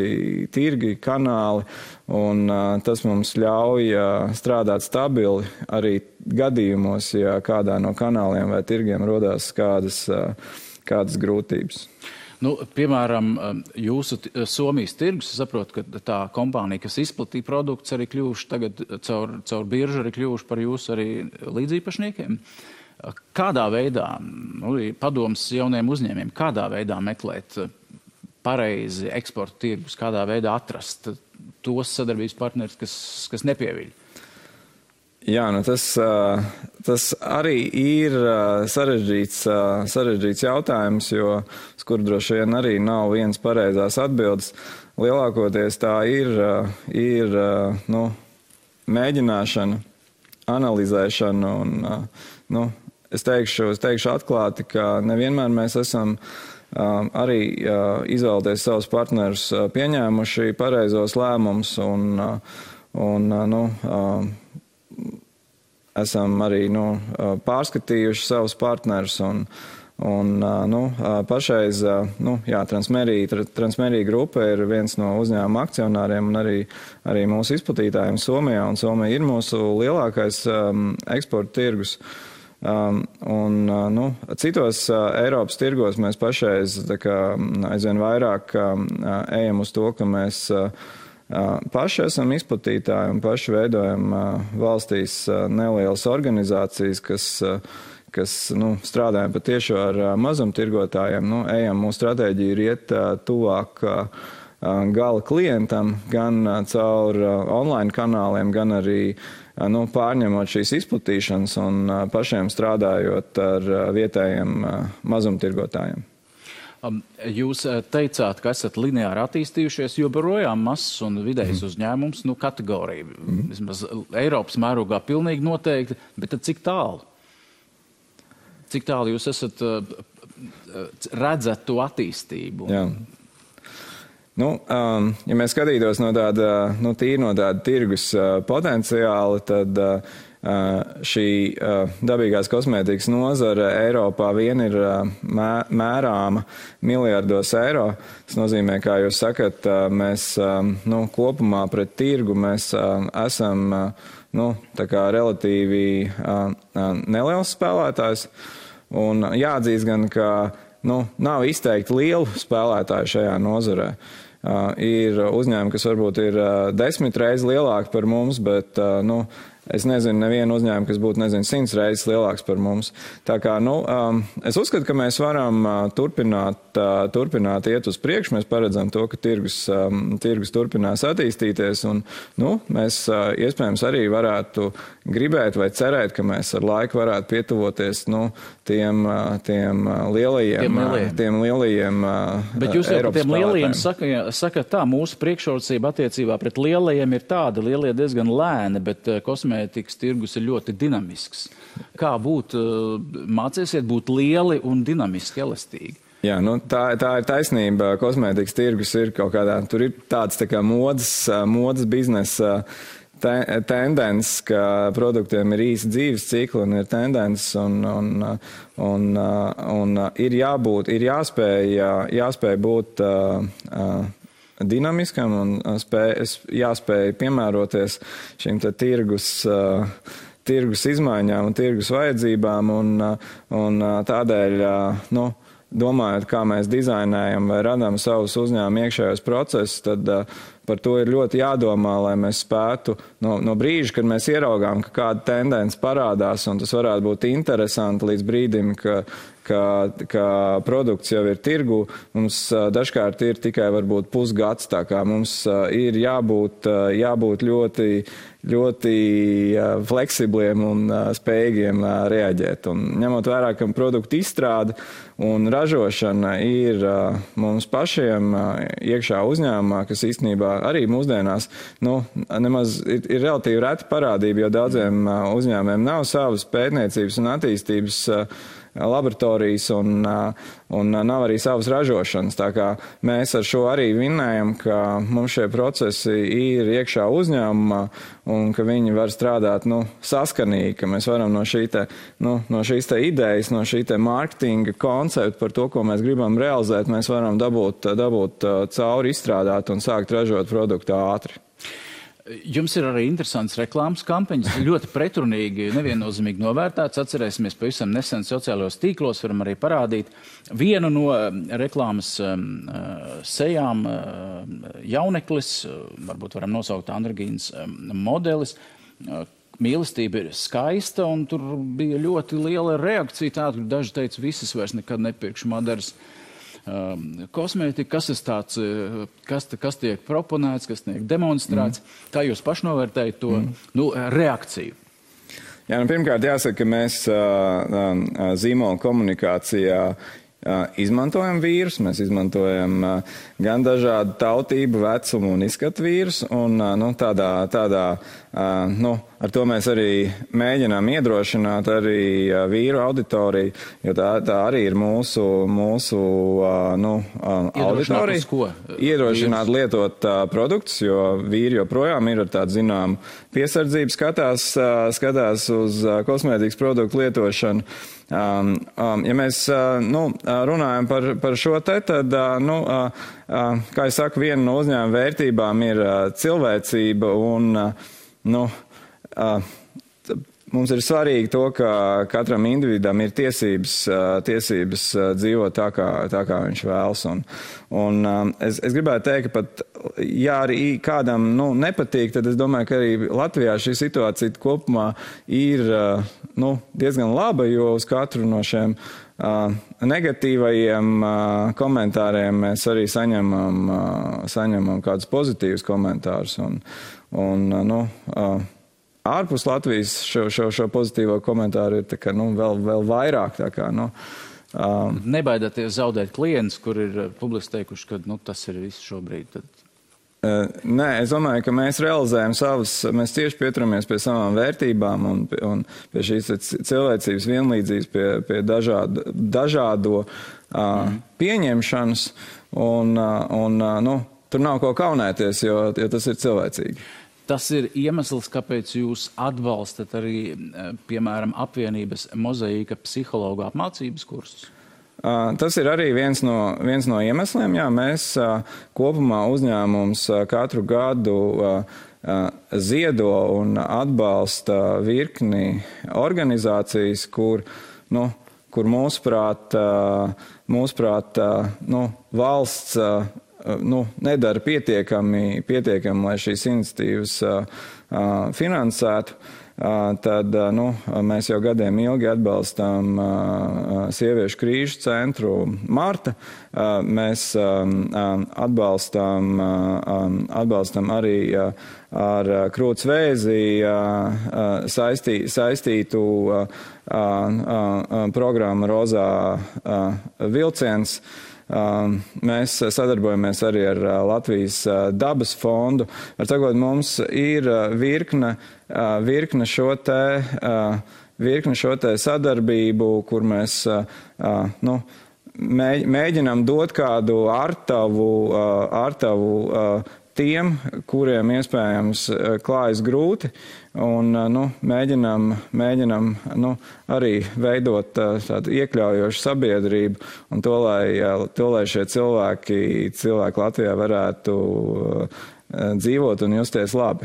[SPEAKER 2] tirgi, kanāli, un tas mums ļauj strādāt stabili arī gadījumos, ja kādā no kanāliem vai tirgiem rodās kādas grūtības.
[SPEAKER 1] Piemēram, jūsu Somijas tirgus, es saprotu, ka tā kompānija, kas izplatīja produktus, arī kļuvuši tagad caur biržu, arī kļuvuši par jūsu arī līdzīpašniekiem. Kādā veidā, padoms jauniem uzņēmiem, kādā veidā meklēt pareizi eksporta tirgus, kādā veidā atrast tos sadarbības partnerus, kas nepieviļ?
[SPEAKER 2] Jā, tas arī ir sarežģīts jautājums, jo uz kuru droši vien arī nav viens pareizās atbildes. Lielākoties tā ir mēģināšana, analizēšana un, es teikšu atklāti, ka nevienmēr mēs esam arī izvēlēties savus partnerus pieņēmuši pareizos lēmumus un esam arī pārskatījuši savus partnerus un pašreiz Transmērija grupa ir viens no uzņēmuma akcionāriem un arī mūsu izplatītājiem Somijā, un Somija ir mūsu lielākais eksporta tirgus. Citos Eiropas tirgos mēs pašreiz aizvien vairāk ejam uz to, ka mēs paši esam izplatītāji un paši veidojam valstīs nelielas organizācijas, kas strādājam patiešo ar mazumtirgotājiem. Ejam, mūsu stratēģija ir iet tuvāk gala klientam, gan caur online kanāliem, gan arī pārņemot šīs izplatīšanas un pašiem strādājot ar vietējiem mazumtirgotājiem.
[SPEAKER 1] Jūs teicāt, ka esat lineāri attīstījušies, joprojām mazs un vidējs uzņēmums, kategorija. Vismaz Eiropas mērogā pilnīgi noteikti, bet tad cik tālu? Cik tālu jūs esat redzat to attīstību?
[SPEAKER 2] Jā. Ja mēs skatītos no tāda tirgus potenciāla, tad šī dabīgās kosmētikas nozara Eiropā vien ir mērāma miljardos eiro. Tas nozīmē, kā jūs sakat, mēs kopumā pret tirgu mēs esam tā kā relatīvi neliels spēlētājs. Un jāatzīst gan, ka nav izteikti lielu spēlētāju šajā nozarē. Ir uzņēmumi, kas varbūt ir 10 reizes lielāki par mums, bet es nezinu nevienu uzņēmumu, kas būtu 100 reizes lielāks par mums. Tā kā, es uzskatu, ka mēs varam turpināt iet uz priekšu. Mēs paredzam to, ka tirgus turpinās attīstīties, un mēs iespējams arī varētu gribēt vai cerēt, ka mēs ar laiku varētu pietuvoties tiem lielajiem
[SPEAKER 1] Bet jūs jau par tiem lielajiem
[SPEAKER 2] sakat
[SPEAKER 1] tā, mūsu priekšrocība attiecībā pret lielajiem ir tāda, lielie diezgan lēni, bet kosmētikas tirgus ir ļoti dinamisks. Kā mācīsiet būt lieli un dinamiski, elastīgi?
[SPEAKER 2] Jā, tā ir taisnība. Kosmētikas tirgus ir kaut kādā, tur ir tāds tā kā modas biznesa tendence, ka produktiem ir īsi dzīves cikli un ir tendences un ir jāspēj būt dinamiskam un jāspēj piemēroties šīm tirgus izmaiņām un tirgus vajadzībām un tādēļ, domājot, kā mēs dizainējam vai radām savus uzņēmumu iekšējos procesus, tad par to ir ļoti jādomā, lai mēs spētu no brīža, kad mēs ieraugām, ka kāda tendence parādās, un tas varētu būt interesanti līdz brīdim, ka produkts jau ir tirgu, mums dažkārt ir tikai varbūt pusgads, tā kā mums ir jābūt ļoti fleksibliem un spējīgiem reaģēt. Un ņemot vērā, ka produktu izstrāde un ražošana ir mums pašiem iekšā uzņēmumā, kas īstenībā arī mūsdienās nemaz ir relatīvi reta parādība, jo daudziem uzņēmumiem nav savas pētniecības un attīstības laboratorijas un nav arī savas ražošanas. Tā kā mēs ar šo arī vinnējam, ka mums šie procesi ir iekšā uzņēmumā un ka viņi var strādāt saskanīgi, ka mēs varam no šīs te idejas, no šī te mārketinga koncepta par to, ko mēs gribam realizēt, mēs varam dabūt cauri, izstrādāt un sākt ražot produktu ātri.
[SPEAKER 1] Jums ir arī interesants reklāmas kampaņas, ļoti pretrunīgi, neviennozīmīgi novērtēts. Atcerēsimies, pavisam nesen sociālajos tīklos varam arī parādīt vienu no reklāmas sejām jauneklis, varbūt varam nosaukt Andragīnas modelis. Mīlestība ir skaista, un tur bija ļoti liela reakcija. Tāda, kur daži teica, visas vairs nekad nepirkšu Madaras kosmētika, kas tiek proponēts, kas tiek demonstrēts. Kā jūs pašnovērtējat to reakciju?
[SPEAKER 2] Jā, pirmkārt jāsaka, ka mēs zīmola komunikācijā izmantojam vīrus, mēs izmantojam gan dažādu tautību, vecumu un izskatu vīrus, un ar to mēs arī mēģinām iedrošināt arī vīru auditoriju, jo tā arī ir mūsu auditorija. Iedrošināt lietot produktus, jo vīri joprojām ir ar tādu zināmu piesardzību skatās uz kosmētikas produktu lietošanu. Ja mēs runājam par šo tad, kā es saku, viena no uzņēmuma vērtībām ir cilvēcība un mums ir svarīgi to, ka katram individam ir tiesības dzīvot tā, kā viņš vēlas. Es gribētu teikt, ka pat, ja arī kādam nepatīk, tad es domāju, ka arī Latvijā šī situācija kopumā ir diezgan laba, jo uz katru no šiem negatīvajiem komentāriem mēs arī saņemam kādus pozitīvus komentārus. Ārpus Latvijas šo pozitīvo komentāru ir vēl vairāk.
[SPEAKER 1] Nebaidāties zaudēt klientus, kur ir publiski teikuši, ka tas ir viss šobrīd?
[SPEAKER 2] Nē, es domāju, ka mēs realizējam mēs tieši pieturamies pie savām vērtībām un pie šīs cilvēcības vienlīdzības, pie dažādo pieņemšanas, un tur nav ko kaunēties, jo tas ir cilvēcīgi.
[SPEAKER 1] Tas ir iemesls, kāpēc jūs atbalstat arī, piemēram, apvienības Mozaīka psihologu apmācības kursus?
[SPEAKER 2] Tas ir arī viens no iemesliem. Jā, mēs kopumā uzņēmums katru gadu ziedo un atbalsta virkni organizācijas, kur mūsuprāt, valsts nedara pietiekami, lai šīs iniciatīvas finansētu. Tad mēs jau gadiem ilgi atbalstām Sieviešu krīžu centru Marta. Mēs atbalstam arī ar krūts vēzi saistītu programmu Rozā vilciens. Mēs sadarbojamies arī ar Latvijas dabas fondu. Var sakot, mums ir virkne šo te sadarbību, kur mēs mēģinām dot kādu ārtavu tiem, kuriem iespējams klājas grūti, un mēģinām arī veidot tādu iekļaujošu sabiedrību, un to, lai šie cilvēki Latvijā varētu dzīvot un justies labi.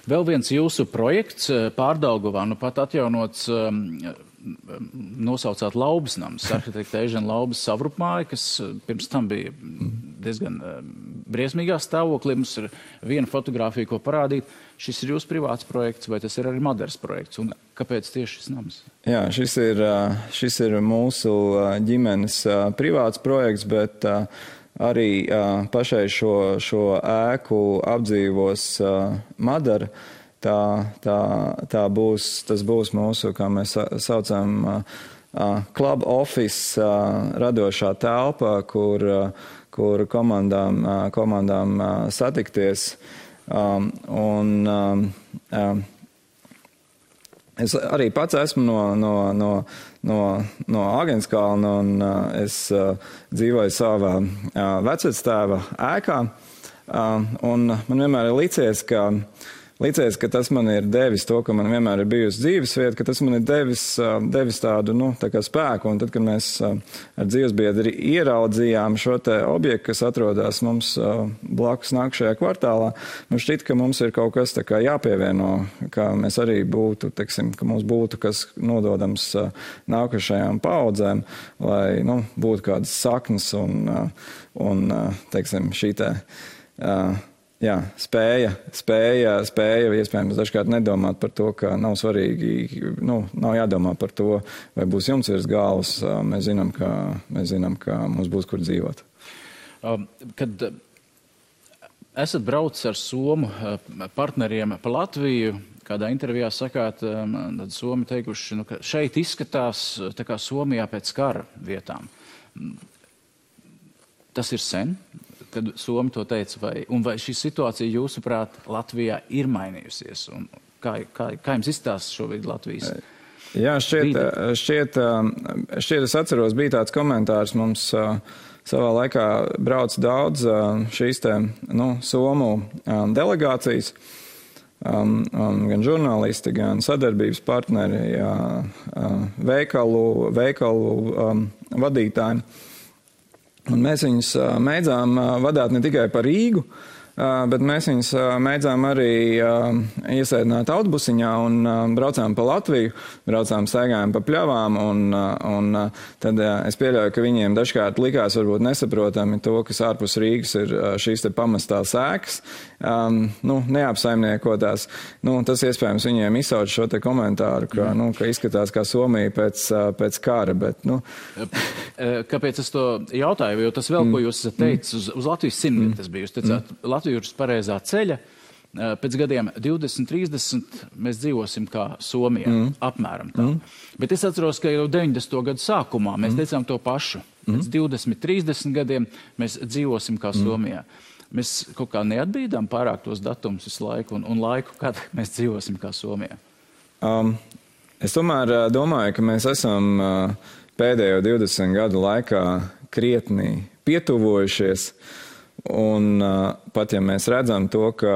[SPEAKER 1] Vēl viens jūsu projekts Pārdaugavā, pat atjaunots, nosaucāt Laubas nams, arhitekta Eižena Laubas savrupmāja, kas pirms tam bija diezgan briesmīgā stāvoklī. Mums ir viena fotogrāfija, ko parādīt. Šis ir jūsu privāts projekts, vai tas ir arī Madaras projekts? Un kāpēc tieši šis nams?
[SPEAKER 2] Jā, šis ir mūsu ģimenes privāts projekts, bet arī pašai šo ēku apdzīvos Madara. Tas būs mūsu, kā mēs saucam, club office radošā telpa, kur komandām satikties. Es arī pats esmu no Agenskalna, un es dzīvoju savā vecvectēva ēkā. Un man vienmēr ir licies, ka tas man ir devis to, ka man vienmēr ir bijusi dzīvesvieta, ka tas man ir devis tādu, tā kā spēku. Un tad, kad mēs ar dzīvesbiedri ieraudzījām šo te objektu, kas atrodas mums blakus nākšajā kvartālā, mums šķiet, ka mums ir kaut kas tā kā jāpievieno, ka mēs arī būtu, ka mums būtu kas nododams nākošajām paudzēm, lai, būtu kādas saknes un šī te, spēja iespējams dažkārt nedomāt par to, ka nav svarīgi, nav jādomā par to, vai būs jumts virs galvas. Mēs zinām, ka mums būs kur dzīvot.
[SPEAKER 1] Kad esat braucis ar somu partneriem pa Latviju, kādā intervijā sakāt, tad somi teikuši, ka šeit izskatās tā kā Somijā pēc kara vietām. Tas ir sen, kad Somi to teica, vai šī situācija, jūsuprāt, Latvijā ir mainījusies? Un kā jums izstāsta šobrīd Latvijas?
[SPEAKER 2] Jā, šķiet, es atceros, bija tāds komentārs mums savā laikā brauc daudz šīs te, Somu delegācijas, gan žurnālisti, gan sadarbības partneri, veikalu vadītāji. Un mēs viņus mēdzām vadāt ne tikai pa Rīgu, bet mēs viņus mēdzām arī iesēdināt autobusiņā un braucām pa Latviju, staigājām pa pļavām, un tad es pieļauju, ka viņiem dažkārt likās varbūt nesaprotami to, kas ārpus Rīgas ir šīs te pamestās ēkas, neapsaimniekotās. Tas iespējams viņiem izsauc šo te komentāru, ka izskatās kā Somija pēc kara, bet,
[SPEAKER 1] Kāpēc es to jautāju? Jo tas vēl, ko jūs esat teicis, uz Latvijas simtgadi tas bija. Jūs teicāt, Latvija ir uz pareizā ceļa. Pēc gadiem 20, 30 mēs dzīvosim kā Somijā, apmēram tā. Bet es atceros, ka jau 90. gadu sākumā mēs teicām to pašu. Pēc 20, 30 gadiem mēs dzīvosim kā Somijā. Mēs kaut kā neatbīdām pārāk tos datumus visu laiku un laiku, kad mēs dzīvosim kā Somijā.
[SPEAKER 2] Es tomēr domāju, ka mēs esam pēdējo 20 gadu laikā krietni pietuvojušies. Un pat ja mēs redzam to, ka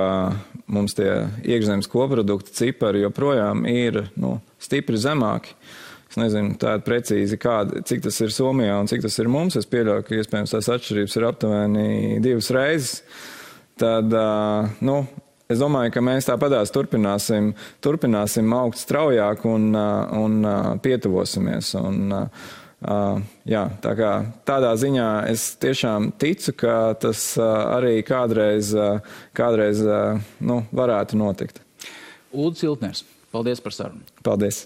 [SPEAKER 2] mums tie iekšzemes koprodukta cipari joprojām ir stipri zemāki. Es nezinu tādu precīzi, cik tas ir Somijā un cik tas ir mums. Es pieļauju, ka iespējams tās atšķirības ir aptuveni 2 reizes. Tad, es domāju, ka mēs tāpatās turpināsim augt straujāk un pietuvosimies. Jā, tā kā tādā ziņā es tiešām ticu, ka tas arī kādreiz varētu notikt.
[SPEAKER 1] Ulris Iltners, paldies par sarunu.
[SPEAKER 2] Paldies.